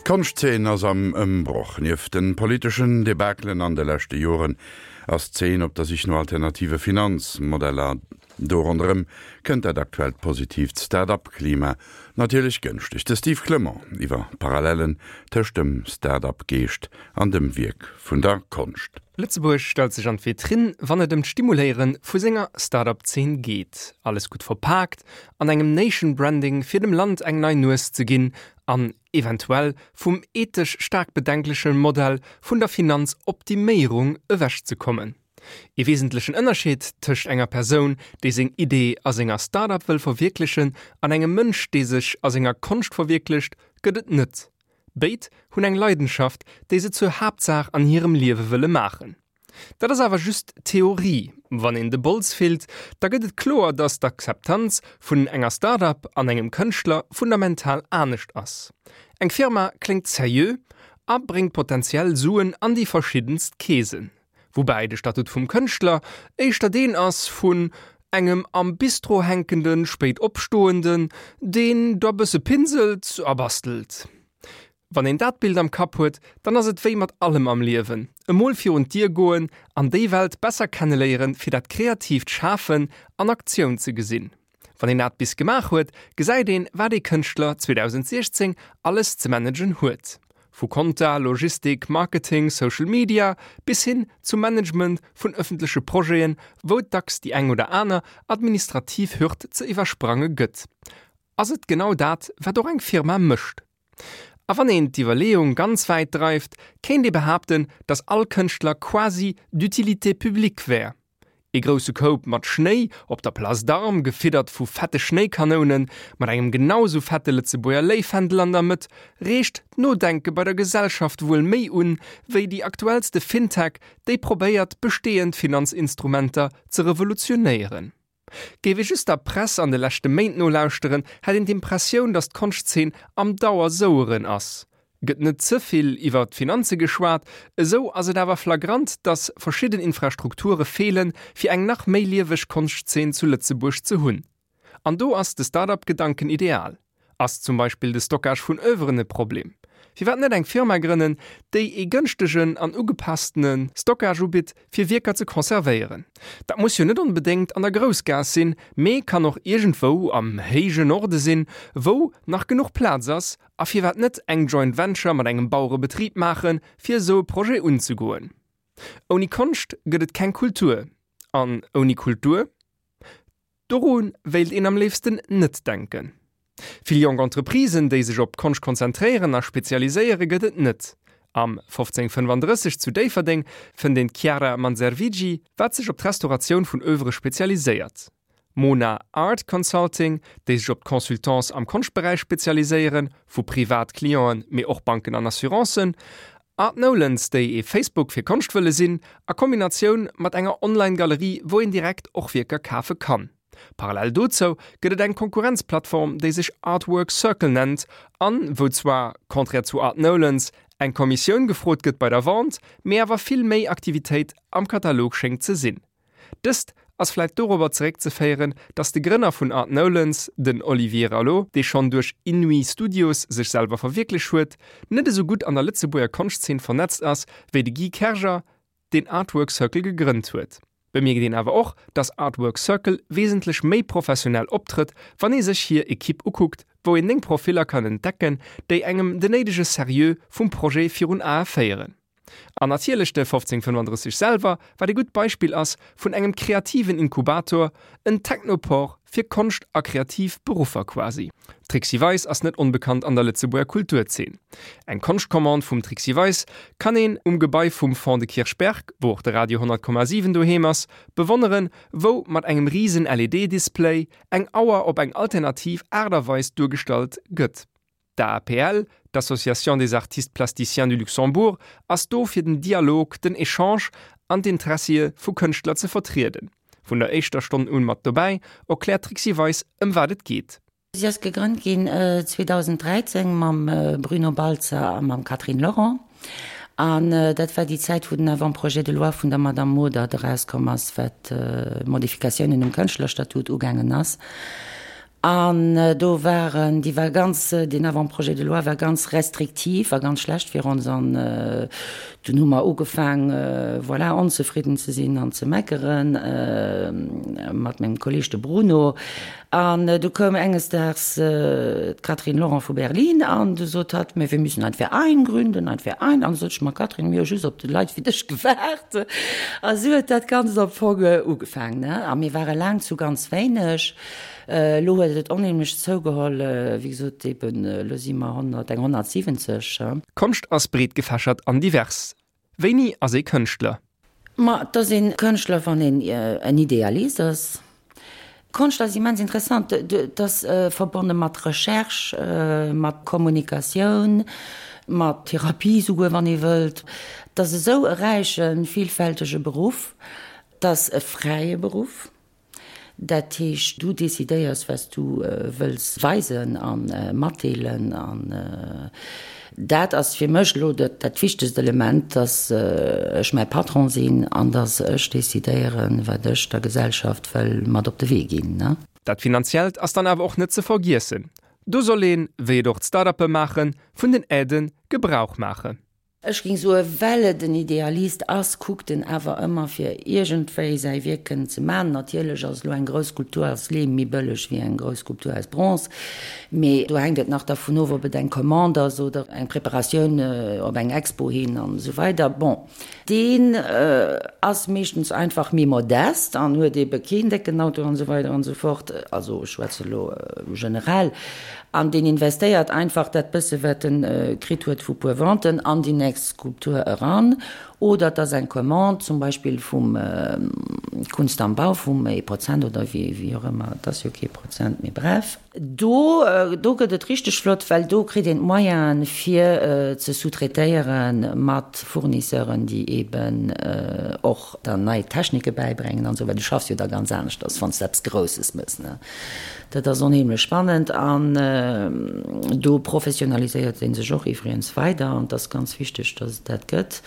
D'Konschtzeen ass am Ëmbroch. Nieft de politeschen Debakelen an de leschte Joren ass d'Zeen op der Sich no alternative Finanzmodeller. Do ronderëm kënnt dat aktuellt positiivt Start-up-Klima natierlech gënschteg. De Steve Clement iwwer Parallellen tëscht dem Start-up-Geescht an dem Wierk vun der Konscht. Lëtzebuerg stellt sech an d'Vitrinn, wann et ëm d'Stimuléiere vu senger Start-up-Zeen geet. Alles gutt verpaakt an engem Nation Branding fir dem Land eng nei Nues ze ginn an eventuell vum ethesch staark bedenkleche Modell vun der Finanzoptiméierung ewechzekommen. Ee wesentlechen Ënnerscheed tëscht enger Persoun, déi seng Idee a senger Start-up wëll verwierklechen, an engem Mënsch, dee sech a senger Konscht verwierklecht, gëtt et net. Béid hunn eng Leidenschaft, déi se zur Haaptsaach an hirem Liewe wëlle maachen. Dat ass awer just Theorie. Wann een de Bols fillt, da gëtt et kloer, datt d'Akzeptanz vun enger Start-up an engem Kënschtler fundamental anescht ass. Eng Firma kléngt seriö a bréngt potenziell Suen an déi verschiddenst Keesen. Woubäi de Statut vum Kënschtler éischter deen ass vun engem am Bistro hänkende Spéitopstoenden, deen da bësse pinselt a bastelt. Wann een dat Bild am Kapp huet, dann ass et wéi mat allem am Liewen, emol virun d'Dier goen an déi Welt besser kenneléieren, fir dat kreatiivt Schafen an Aktioun ze gesinn. Wann een dat bis gemaach huet, gesäit een, wat ee Kënschtler 2016 alles ze managen huet. Vu Konta, Logistik, Marketing, Social Media bis hin zum Management vun ëffentleche Projeten, wou et dacks déi eng oder aner administrativ Hürd ze iwwersprange gëtt. Ass et genau dat, wat och eng Firma mécht? A wann een d'Iwwerleeung ganz wäit dreift, kéint ee behaapten, datt all Kënschtler quasi d'utilité publique wär. Ee grousse Koup mat Schnéi op der Place d'Armes, gefiddert vu fette Schnéikanounen, mat engem genau sou fette Lëtzebuerger Léifändel an der Mëtt, reegt d'Nodenke bei der Gesellschaft wuel méi un, wéi déi aktuellste Fintech, déi probéiert, bestehend Finanzinstrumenter ze revolutionéieren. Géif ee just der Press an de leschte Méint nolauschteren, hätt een d'Impressioun, datt d'Konschtzeen am Dauersoueren ass. Gëtt net ze vill iwwer d'Finanze geschwat, esou ass et awer flagrant, datt verschidden Infrastrukture feelen, fir eng nach méi lieweg Konschtzeen zu Lëtzebuerg ze hunn. An do ass de Start-up-Gedanken ideal. Ass zum Beispill de Stockage vun Oeuvren e Problem? Firwat net eng Firma grënnen, déi ee gënschtegen an ugepasstene Stockage ubitt, fir Wierker ze conservéieren? Dat muss jo net onbedéngt an der Groussgaass sinn, mee kann och iergendwou am héije Norde sinn, wou nach genuch Plaz ass. A firwat net eng Joint Venture mat engem Bauerebetrib maachen, fir esou e Projet unzegoen? Ouni Konscht gëtt et keng Kultur. An ouni Kultur? Doru wéilt een am léifsten net denken. Vill jonk Entreprisen, déi sech op Konscht konzentréieren a spezialiséiere gëtt et net. Am 1535 zu Déifferdeng fënnt een d'Chiara Manservigi, wat sech op d'Restauratioun vun Oeuvre spezialiséiert. Mona Art Consulting, déi sech op d'Consultance am Konschtberäich spezialiséieren, vu privat Clienten, mee och Banken an Assurancen. Art Nolens, déi ee Facebook fir Konscht wëlle sinn, a Kombinatioun mat enger Online-Galerie, wou een direkt och Wierker kafe kann. Parallel dozou gëtt et eng Konkurrenzplattform, déi sech Artwork Circle nennt an wou zwar, contraire zu Art Nolens, eng Kommissioun gefrot gëtt bei der Vente, mee awer vill méi Aktivitéit am Katalog schéngt ze sinn. Dëst ass vläit dorobber zeréckzeféieren, datt de Grënner vun Art Nolens, den Olivier Rallo, dee schonn duerch Inouï Studios sech selwer verwierklech huet, net esou gutt an der Lëtzebuerger Konschtzeen vernetzt ass wéi de Guy Kerger, deen Artwork Circle gegrënnt huet. Bemierkt een awer och, datt Artwork Circle wesentlech méi professionell optrëtt, wann ee sech hir Ekipp ukuckt, wou een 9 Profiller kann entdecken, déi engem den néidege Serieux vum Projet virun Ae féieren. An natierlech de 1535 selwer, wat ee gutt Beispill ass vun engem kreativen Inkubator, en Technopore fir Konscht a kreativ Beruffer quasi. D'Trixi Weis ass net onbekannt an der Lëtzebuerger Kulturzeen. Eng Konschtcommande vum Trixi Weis kann een um Gebai vum Fonds de Kirchberg, wou och de Radio 100,7 doheem ass, bewonneren, wou mat engem risen LED-Display eng Auer op eng alternativ Aart a Weis duergestallt gëtt. D'AAPL, d'Association des Artistes Plasticiens du Luxembourg, ass do fir den Dialog, den Echange an d'Intressie vu Kënschtler ze vertrieden. Vun der éischter Stonn un mat dobäi, erkläert d'Trixi Weis ëm wat et geet. Si ass gegrënnt ginn 2013 mam Bruno Baltzer a mam Catherine Lorent. An dat war déi Zäit, wou den Avant-projet de loi vun der Madame Modert erauskomm ass, wat d'Modifikatiounen um Kënschtlerstatut ugaangen ass. An do waren, déi war ganz, deen Avant-projet de loi war ganz restriktiv a ganz schlecht fir ons. An dunn hu mer ugefaang, voilà, onzefridden ze sinn an ze meckeren, mat mengem Kolleg, de Bruno. An du koum enges Daags d'Catherine Laurent vu Berlin an du sot hatt, Mais wir müssen ein Verein gründen, ein Verein. An du sot ech, Ma Catherine, mir hu just op Leit wéi dech gewaart. A sou huet dat Ganzt am Fong ugefaang, ne. A mir ware laang zu ganz wéineg. Elo huet et onheemlech zougeholl, wéi gesot, eben elo si mer 100, eng 170. Konscht ass breet gefächert an divers. Wéini ass ee Kënschtler? Ma et ass ee Kënschtler, wann een en Idealist ass. Konscht ass immens interessant, et ass verbonne mat Recherche, mat Kommunikatioun, mat Therapie souguer, wann ee wëllt. Et ass esou e räichen, villfältege Beruff. Et ass e fräie Beruff. Dat heescht, du decidéiers, wat s du wëlls weisen a matdeelen. An dat ass fir mech elo dat wichtegst Element, dass ech mäi Patron sinn an dass ech decidéieren, wat ech der Gesellschaft wëll mat op de Wee ginn. Dat Finanziellt ass dann awer och net ze vergiessen. Do soll een, wéi et och d'Start-uppe maachen, vun den Aidë Gebrauch maachen. Ech ging soen, well et en Idealist ass, kuckt en awer ëmmer fir iergendwéi säi Wierk kënnen ze man. Natierlech ass elo eng grouss Skulptur aus Leem méi bëlleg wéi eng grouss Skulptur aus Bronze, mee do hänkt et nach dervun of, ob et eng Commande ass oder eng Preparatioun op eng Expo hin an esou weider. Bon, deen ass meeschtens einfach méi modest an huet ebe keen décken Auto an esou weider an esou fort, also ech schwätze elo generell. An deen investéiert einfach dat bësse wat en kritt huet vu puer Venten an déi nächst Skulptur eran. Oder et ass eng Commande zum Beispill vum Kunst am Bau, vum ee Prozent oder wéi och ëmmer, et ass jo kee Prozent, mee bref. Do, do gëtt et richteg flott, well do kritt een d'Moyenen fir ze sous-traitéiere mat Fournisseuren, déi eeben och der nei Technike bäibréngen an esou, well du schaffs jo da ganz aneschters, wann s de eppes Grousses mëss, ne. Dat ass onheemlech spannend an do professionaliséiert ee sech och iwwregens weider an et ass ganz wichteg, datt et dat gëtt.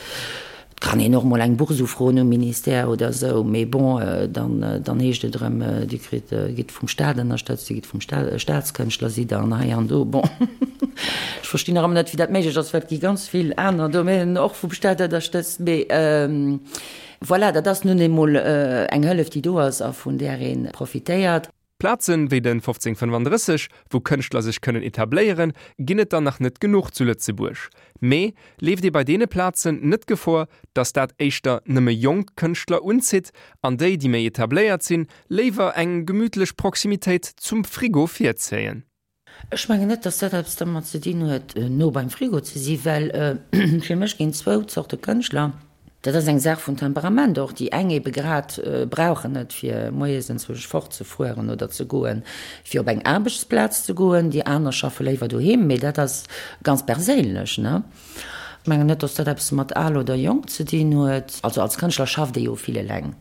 Et kann een och mol eng Bourse ufroen um Ministère oder esou, mee bon, dann, dann heescht et erëm, Dir kritt, gitt vum Staat ënnerstëtzt, Dir gitt vum Staat, Staatskënschtler sidd Der an hei an do. Bon, ech verstinn nach ëmmer net, wéi dat méiglech ass, well et gi ganz vill aner Domänen och vum Staat ënnerstëtzt, mee voilà, dat ass nun eemol eng Hëllef, déi do ass a vun där ee profitéiert. Plazen wéi den 1535, wou Kënschtler sech kënnen etabléieren, ginn et der nach net genuch zu Lëtzebuerg. Mee leeft ee bei deene Plazen net Gefor, datt dat éischter nëmme jonk Kënschtler unzitt an déi, déi méi etabléiert sinn, léiwer eng gemütlech Proximitéit zum Frigo virzéien? Ech mengen net, dass dat eppes dermat ze dinn huet, no beim Frigo ze si well fir mech ginn zwou Zorte Kënschtler. Dat ass eng Saach vun Temperament och. Déi eng ebe grad brauchen et, fir moies enzwousch fortzefueren oder ze goen, fir op eng Aarbechtsplaz ze goen. Déi aner schaffe léiwer doheem. Mee dat ass ganz perséinlech, ne? Ech mengen net, dass dat eppes mat al oder jonk ze dinn huet. Also als Kënschtler schafft ee jo vill eleng.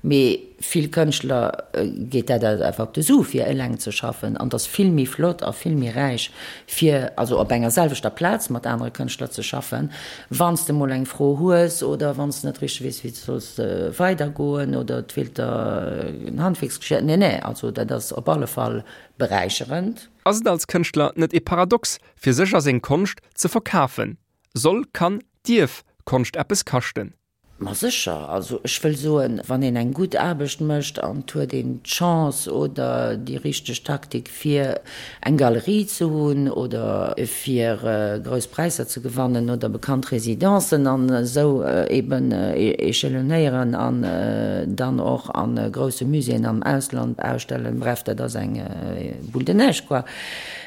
Mee vill Kënschtler geet dat einfach op de Su fir eleng ze schaffen. An et ass vill méi flott a vill méi räich fir also op enger selwechter Plaz mat anere Kënschtler ze schaffen. Wann s de mol eng Fro hues oder wann s de net richteg weess wéi s de solls weidergoen oder et feelt der en Handwierksgeschir. Nee, nee, also dat ass op alle Fall beräicherend. Ass et als Kënschtler net e Paradox, fir sech a seng Konscht ze verkafen? Soll, kann, dierf Konscht eppes kaschten? Ma sécher, also ech wëll soen, wann een eng gutt Aarbecht mécht an et huet een d'Chance oder déi richteg Taktik fir eng Galerie ze hunn oder fir grouss Präisser ze gewannen oder bekannt Residencen an esou eben échelonnéieren an dann och a grousse Muséeën am Ausland ausstellen, bref, dat ass eng Boule de neige quoi,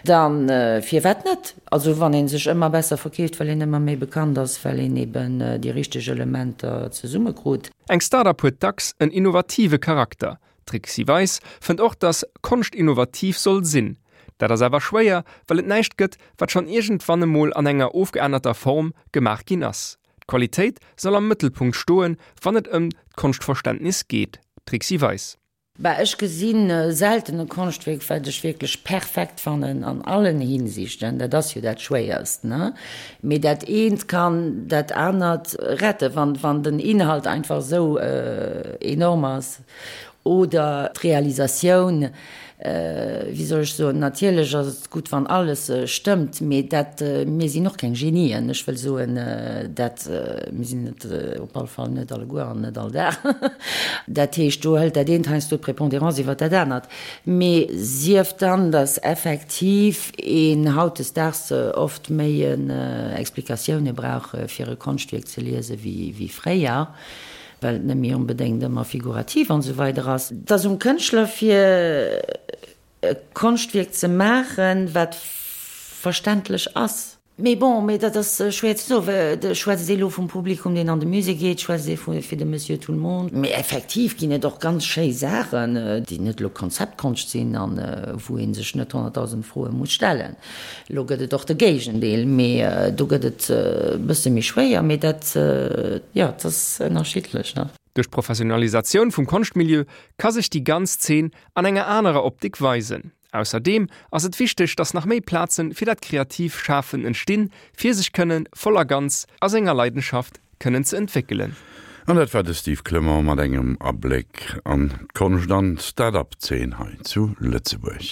dann firwat net? Also wann ee sech ëmmer besser verkeeft, well een ëmmer méi bekannt ass, well een eben déi richteg Elementer zesummekrut. Eng Start-up huet dacks en innovative Charakter. D'Trixi Weis fënnt och, dass Konscht innovativ soll sinn. Dat ass awer schwéier, well et näischt gëtt, wat schonn iergendwann emol an enger ofgeännerter Form gemaach ginn ass. D'Qualitéit soll am Mëttelpunkt stoen, wann et ëm d'Konschtverständnis geet. Trixi Weis. Bah, ech gesinn selten e Konschtwierk, wat ech wierklech perfekt fannen an allen Hinsichten. Dat ass jo dat Schwéierst, ne? Mee dat eent kann dat anert retten, wann, wann den Inhalt einfach esou enorm ass oder d'Realisatioun. Wéi soll ech soen, natierlech ass et gutt, wann alles stëmmt, mee dat, mir sinn och keng Genien, ech wëll soen, dat, mir sinn et op alle Fall net alleguer an net all Dag. Dat heescht, do hëlt dat eent heiansdo d'Prépondérance iwwer dat anert. Mee sief dann, datt effektiv een hautdesdaags oft méi Explikatioune brauch, fir e Konschtwierk ze liesen, wéi fréier. well et net méi onbedéngt ëmmer figurativ an esou weider ass. Et ass um Kënschtler fir e Konschtwierk ze maachen, wat verständlech ass. Mee bon, mee dat ass schwéier ze soen, well schwätzt ee lo vum Publikum, deen an de Musée geet, schwätzt ee vu fir de Monsieur tout le monde. Mee effektiv ginn et och ganz schéi Saachen, déi net elo Konzeptkonscht sinn an wou ee sech net 100.000 Froe muss stellen. Elo gëtt et och de Géigendeel, mee do gëtt et e bësse méi schwéier. Mee dat, jo, et ass ënnerschiddlech, ne? Duerch d'Professionalisatioun vum Konschtmilieu ka sech déi ganz Zeen an enger anerer Optik weisen. Ausserdeem ass et wichteg, datt nach méi Plaze fir dat kreativ Schafen entstinn, fir sech kënne voll a ganz a senger Leidenschaft kënnen ze entwéckelen. An dat war de Steve Clement mat engem Abléck an d'Konscht an d'Start-up-Zeen hei zu Lëtzebuerg.